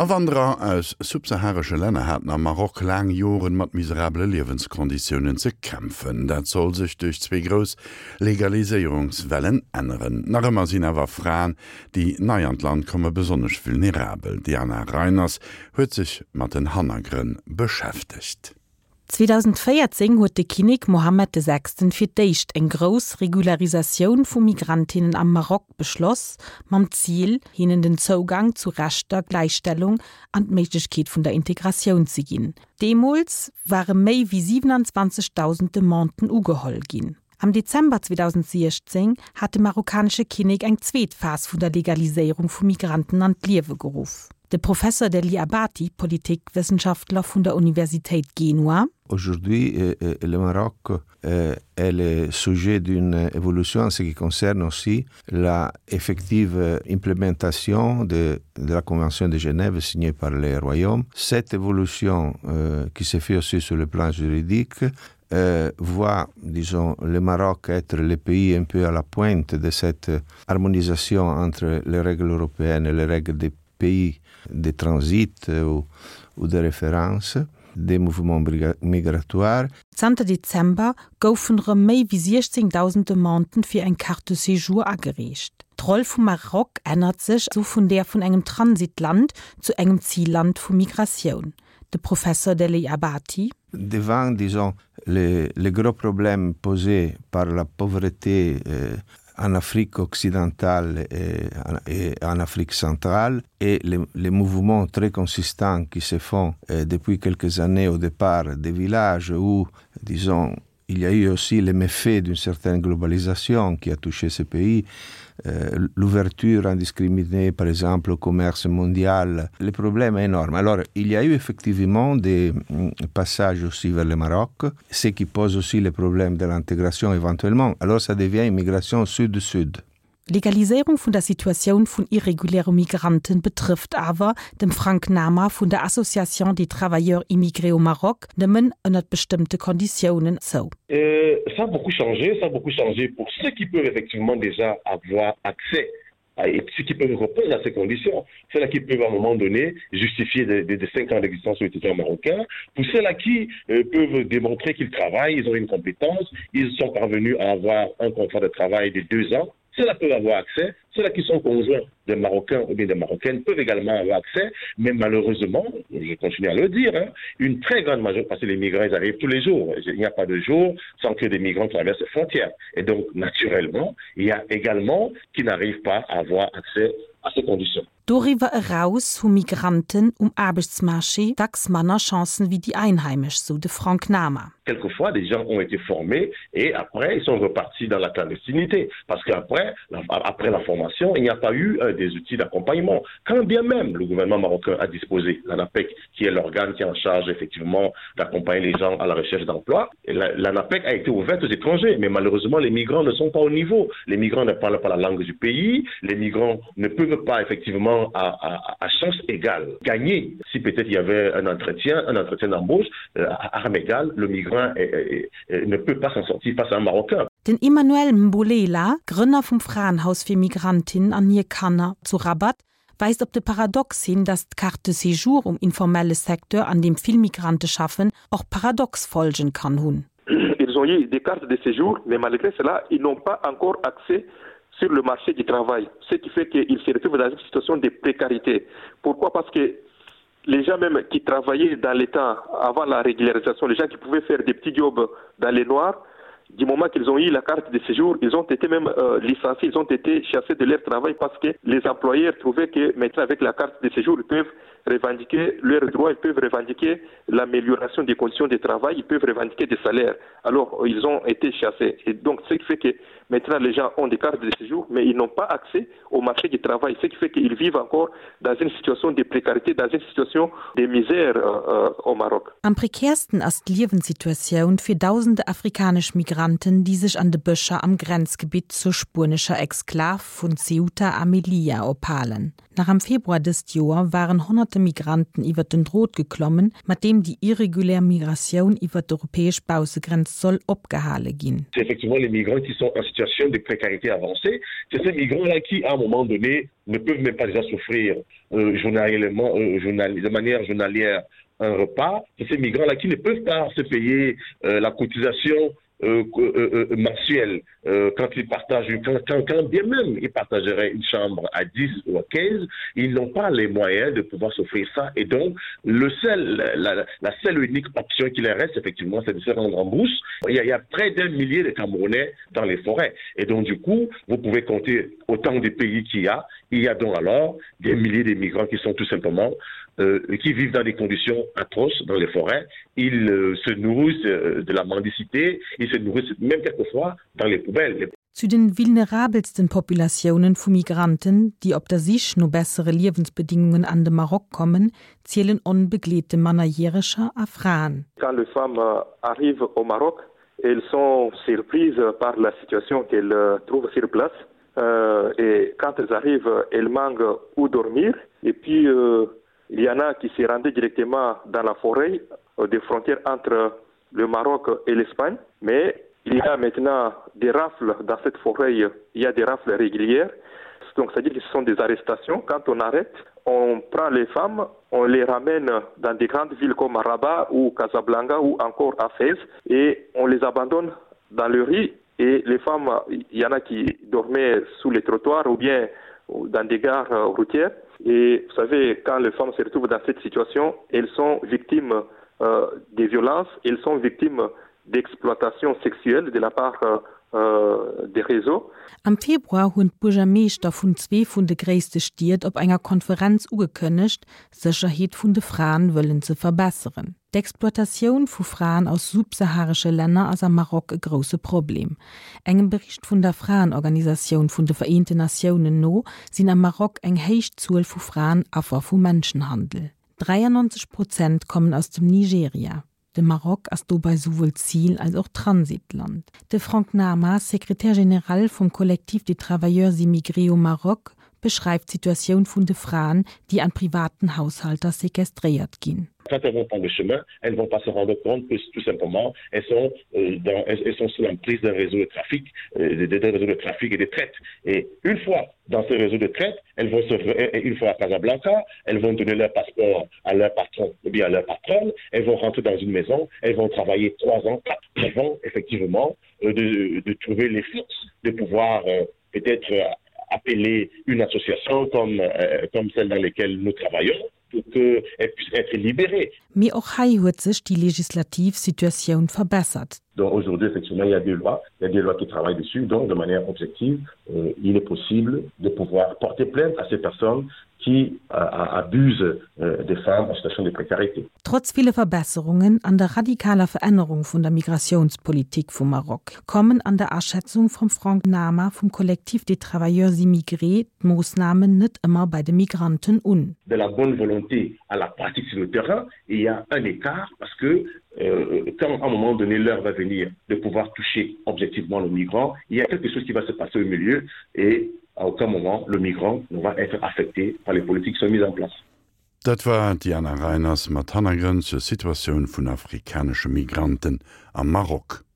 Awanderer aus subsaharesche Länner haten am Maroc laang Joren mat miserabele Liewenskonditiounen ze kämpfen. Dat soll sech duerch zwee grouss Legaliséierungswellen änneren. Nach ëmmer sinn awer Fraen, déi nei an d'Land komme besonnesch vulnerabel. D'Diana Reiners huet sech mat den Hannergrënn beschäftegt. 2014 huet de Kinnek Mohammed de Sechsten fir d'éischt eng grouss Regularisatioun vu Migrantinnen am Maroc beschloss, mam Zil, hinnen den Zougang zu Rechter, Gläichstellung an d'Méiglechkeet vun der Integratioun ze ginn. Deemools ware méi wéi 27.000 Demanden ugeholl ginn. Am Dezember 2016 hat de marokkanesche Kinnek eng zweet Phas vun der Legaliséierung vu Migranten an d'Liewe geruff. De Professor Degli Abati, Politikwëssenschaftler vun der Universitéit Genua. Aujourd'hui, le Maroc est le sujet d'une évolution en ce qui concerne aussi la effective implémentation de, de la Convention de Genève signée par les royaumes. Cette évolution euh, qui se fait aussi sur le plan juridique euh, voit disons le Maroc être le pays un peu à la pointe de cette harmonisation entre les règles européennes et les règles des pays de transit ou, ou de référence des mouvements migratoires. Zanter Dezember goufen erëm méi wéi 16.000 Demanden fir eng Carte de séjour agereecht. D'Roll vum Maroc ännert sech esou vun där vun engem Transitland zu engem Zilland vu Migratioun. De Professor Degli Abati. Devant, disons, les, les gros problèmes posés par la pauvreté euh, en Afrique occidentale et, et en Afrique centrale et les, les mouvements très consistants qui se font euh, depuis quelques années au départ des villages où, disons, il y a eu aussi les méfaits d'une certaine globalisation qui a touché ces pays, euh, l'ouverture indiscriminée par exemple au commerce mondial, le problème est énorme. Alors il y a eu effectivement des mm, passages aussi vers le Maroc, ce qui pose aussi le problème de l'intégration éventuellement. Alors ça devient une migration sud-sud. D'Legaliséierung vun der Situatioun vun irreguläre Migranten betrëfft awer, dem Frank Nama vun der Association des travailleurs immigrés au Maroc, nëmmen ënnert bestëmmte Konditiounen zou. Ça a beaucoup changé, ça a beaucoup changé pour ceux qui peuvent effectivement déjà avoir accès et ceux qui peuvent répondre à ces conditions, ceux-là qui peuvent à un moment donné justifier des, des, des cinq ans d'existence sur le territoire marocain, pour ceux-là qui euh, peuvent démontrer qu'ils travaillent, ils ont une compétence, ils sont parvenus à avoir un contrat de travail de deux ans, ceux-là peuvent avoir accès, ceux-là qui sont conjoints des Marocains ou bien des Marocaines peuvent également avoir accès, mais malheureusement, je continue à le dire, hein, une très grande majorité, parce que les migrants ils arrivent tous les jours, il n'y a pas de jour sans que des migrants traversent les frontières. Et donc, naturellement, il y a également qui n'arrivent pas à avoir accès à ces conditions. Doriwwer eraus hu Migranten um Aarbechtsmarché dacks manner Chancen wéi déi Einheimesch, sou de Frank Nama. Quelquefois, des gens ont été formés et après, ils sont repartis dans la clandestinité. Parce qu'après la, après la formation, il n'y a pas eu euh, des outils d'accompagnement. Quand bien même le gouvernement marocain a disposé, l'ANAPEC, qui est l'organe qui est en charge effectivement d'accompagner les gens à la recherche d'emploi, l'ANAPEC a été ouverte aux étrangers. Mais malheureusement, les migrants ne sont pas au niveau. Les migrants ne parlent pas la langue du pays. Les migrants ne peuvent pas effectivement à, à, à chance égale gagner. Si peut-être il y avait un entretien, un entretien d'embauche, euh, à armes égales, le migrant est, est, est, ne peut pas s'en sortir face à un Marocain. Den Emmanuel Mbolela, Grënner vum Fraenhaus fir Migrantinnen an hir Kanner zu Rabat, weist op de Paradox hin, datt d'Carte de séjour um informelle Secteur, an deem vill Migrante schaffen, och paradox Folgen kann hunn. Ils ont eu des cartes de séjour, mais malgré cela, ils n'ont pas encore accès sur le marché du travail, ce qui fait qu'ils se retrouvent dans une situation de précarité. Pourquoi Parce que les gens même qui travaillaient dans l'État avant la régularisation, les gens qui pouvaient faire des petits jobs dans les noirs, du moment qu'ils ont eu la carte de séjour, ils ont été même euh, licenciés, ils ont été chassés de leur travail parce que les employeurs trouvaient que maintenant avec la carte de séjour, ils peuvent revendiquer leurs droits, ils peuvent revendiquer l'amélioration des conditions de travail, ils peuvent revendiquer des salaires. Alors, ils ont été chassés. Et donc, ce qui fait que maintenant, les gens ont des cartes de séjour, mais ils n'ont pas accès au marché du travail, ce qui fait qu'ils vivent encore dans une situation de précarité, dans une situation de misère euh, euh, au Maroc. Am prekäersten ass d'Liewenssituatioun fir dausende afrikanesch Migranten. Migranten, déi sech an de Bëscher am Grenzgebitt zur spuenescher Exklav vun Ceuta a Melilla ophalen. Nach am Februar dëst Joer waren honnerte Migranten iwwert den Drot geklommen, mat deem déi irregulär Migratioun iwwert d'europäesch Baussegrenz soll opgehale ginn. C'est effectivement les migrants qui sont en situation de précarité avancée, c'est ces migrants-là qui à un moment donné ne peuvent même pas déjà s'offrir euh, journalièrement, euh, journal, de manière journalière un repas, c'est ces migrants-là qui ne peuvent pas se payer euh, la cotisation euh, euh, euh, mensuelle euh, quand ils partagent quand, quand, quand bien même ils partageraient une chambre à 10 ou à 15, ils n'ont pas les moyens de pouvoir s'offrir ça et donc le seul la, la seule unique option qui leur reste effectivement c'est de se rendre en brousse. Il y a, il y a près d'un millier de Camerounais dans les forêts et donc du coup vous pouvez compter autant de pays qu'il y a il y a donc alors des milliers de migrants qui sont tout simplement euh, qui vivent dans des conditions atroces dans les forêts ils euh, se nourrissent euh, de la mendicité ils se nourrissent même quelquefois dans les poubelles. Zu den vulnerabelsten Populatiounen vu Migranten, déi op der Sich no bessere Liewensbedingungen an de Maroc kommen, zielen onbegleete Mannerjäreger a Fraen. Quand les femmes arrivent au Maroc, elles sont surprises par la situation qu'elles trouvent sur place euh, et quand elles arrivent, elles manquent où dormir et puis euh, il y en a qui se rendaient directement dans la forêt euh, des frontières entre le Maroc et l'Espagne mais il y a maintenant des rafles dans cette forêt il y a des rafles régulières donc c'est à dire que ce sont des arrestations quand on arrête on prend les femmes on les ramène dans des grandes villes comme Rabat ou Casablanca ou encore à Fès et on les abandonne dans le riz et les femmes il y en a qui dormaient sous les trottoirs ou bien dans des gares euh, routières et vous savez quand les femmes se retrouvent dans cette situation elles sont victimes euh, des violences elles sont victimes d'exploitation sexuelle de la part euh, euh, des réseaux. Am Februar hunn d'Buergermeeschter vun zwee vun de gréisste Stied op enger Konferenz ugekënnegt, d'Sécherheet vun de Fraen wëllen ze verbesseren. D'Exploitatioun vu Fraen aus subsaharesche Länner ass am Maroc e grousse Problem. Engem Bericht vun der Fraenorganisatioun vun de Vereenten Natiounen no sinn am Maroc eng héich Zuel vu Fraen Affer vu Menschenhandel. 93 Prozent kommen aus dem Nigeria. De Maroc ass dobei souwuel Zil als och Transitland. De Franck Nama, Secrétaire général vum Collectif des travailleurs immigrés au Maroc, beschreift d'Situatioun vun de Fraen, déi an privaten Haushalter sequestréiert ginn. Quand elles vont prendre le chemin, elles ne vont pas se rendre compte que tout simplement elles sont, euh, dans, elles, elles sont sous l'emprise d'un réseau de trafic, euh, d'un réseau de trafic et de traite. Et une fois dans ce réseau de traite, elles vont se, une fois à Casablanca, elles vont donner leur passeport à leur patron ou bien à leur patronne, elles vont rentrer dans une maison, elles vont travailler trois ans, quatre avant effectivement euh, de, de trouver les forces de pouvoir euh, peut-être euh, appeler une association comme, euh, comme celle dans laquelle nous travaillons pour qu'elle puisse être libérée. Mee och hei huet sech déi legislativ Situatioun verbessert. Donc aujourd'hui effectivement il y a des lois, il y a des lois qui travaillent dessus donc de manière objective euh, il est possible de pouvoir porter plainte à ces personnes qui euh, abusent euh, des femmes en situation de précarité. Trotz ville Verbesserungen an der radikaler Verännerung vun der Migratiounspolitik vum Maroc, kommen an der Aschätzung vum Franck Nama vum Collectif des Travailleurs Immigrés d'Moossnamen net ëmmer bei de Migranten un. De la bonne volonté à la pratique sur le terrain, il y a un écart parce que euh, quand à un moment donné l'heure va venir de pouvoir toucher objectivement le migrant, il y a quelque chose qui va se passer au milieu et à aucun moment le migrant ne va être affecté par les politiques qui sont mises en place. Dat war d'Diana Reiners mat Hannergrënn zur Situatioun vun afrikanesche Migranten am Maroc.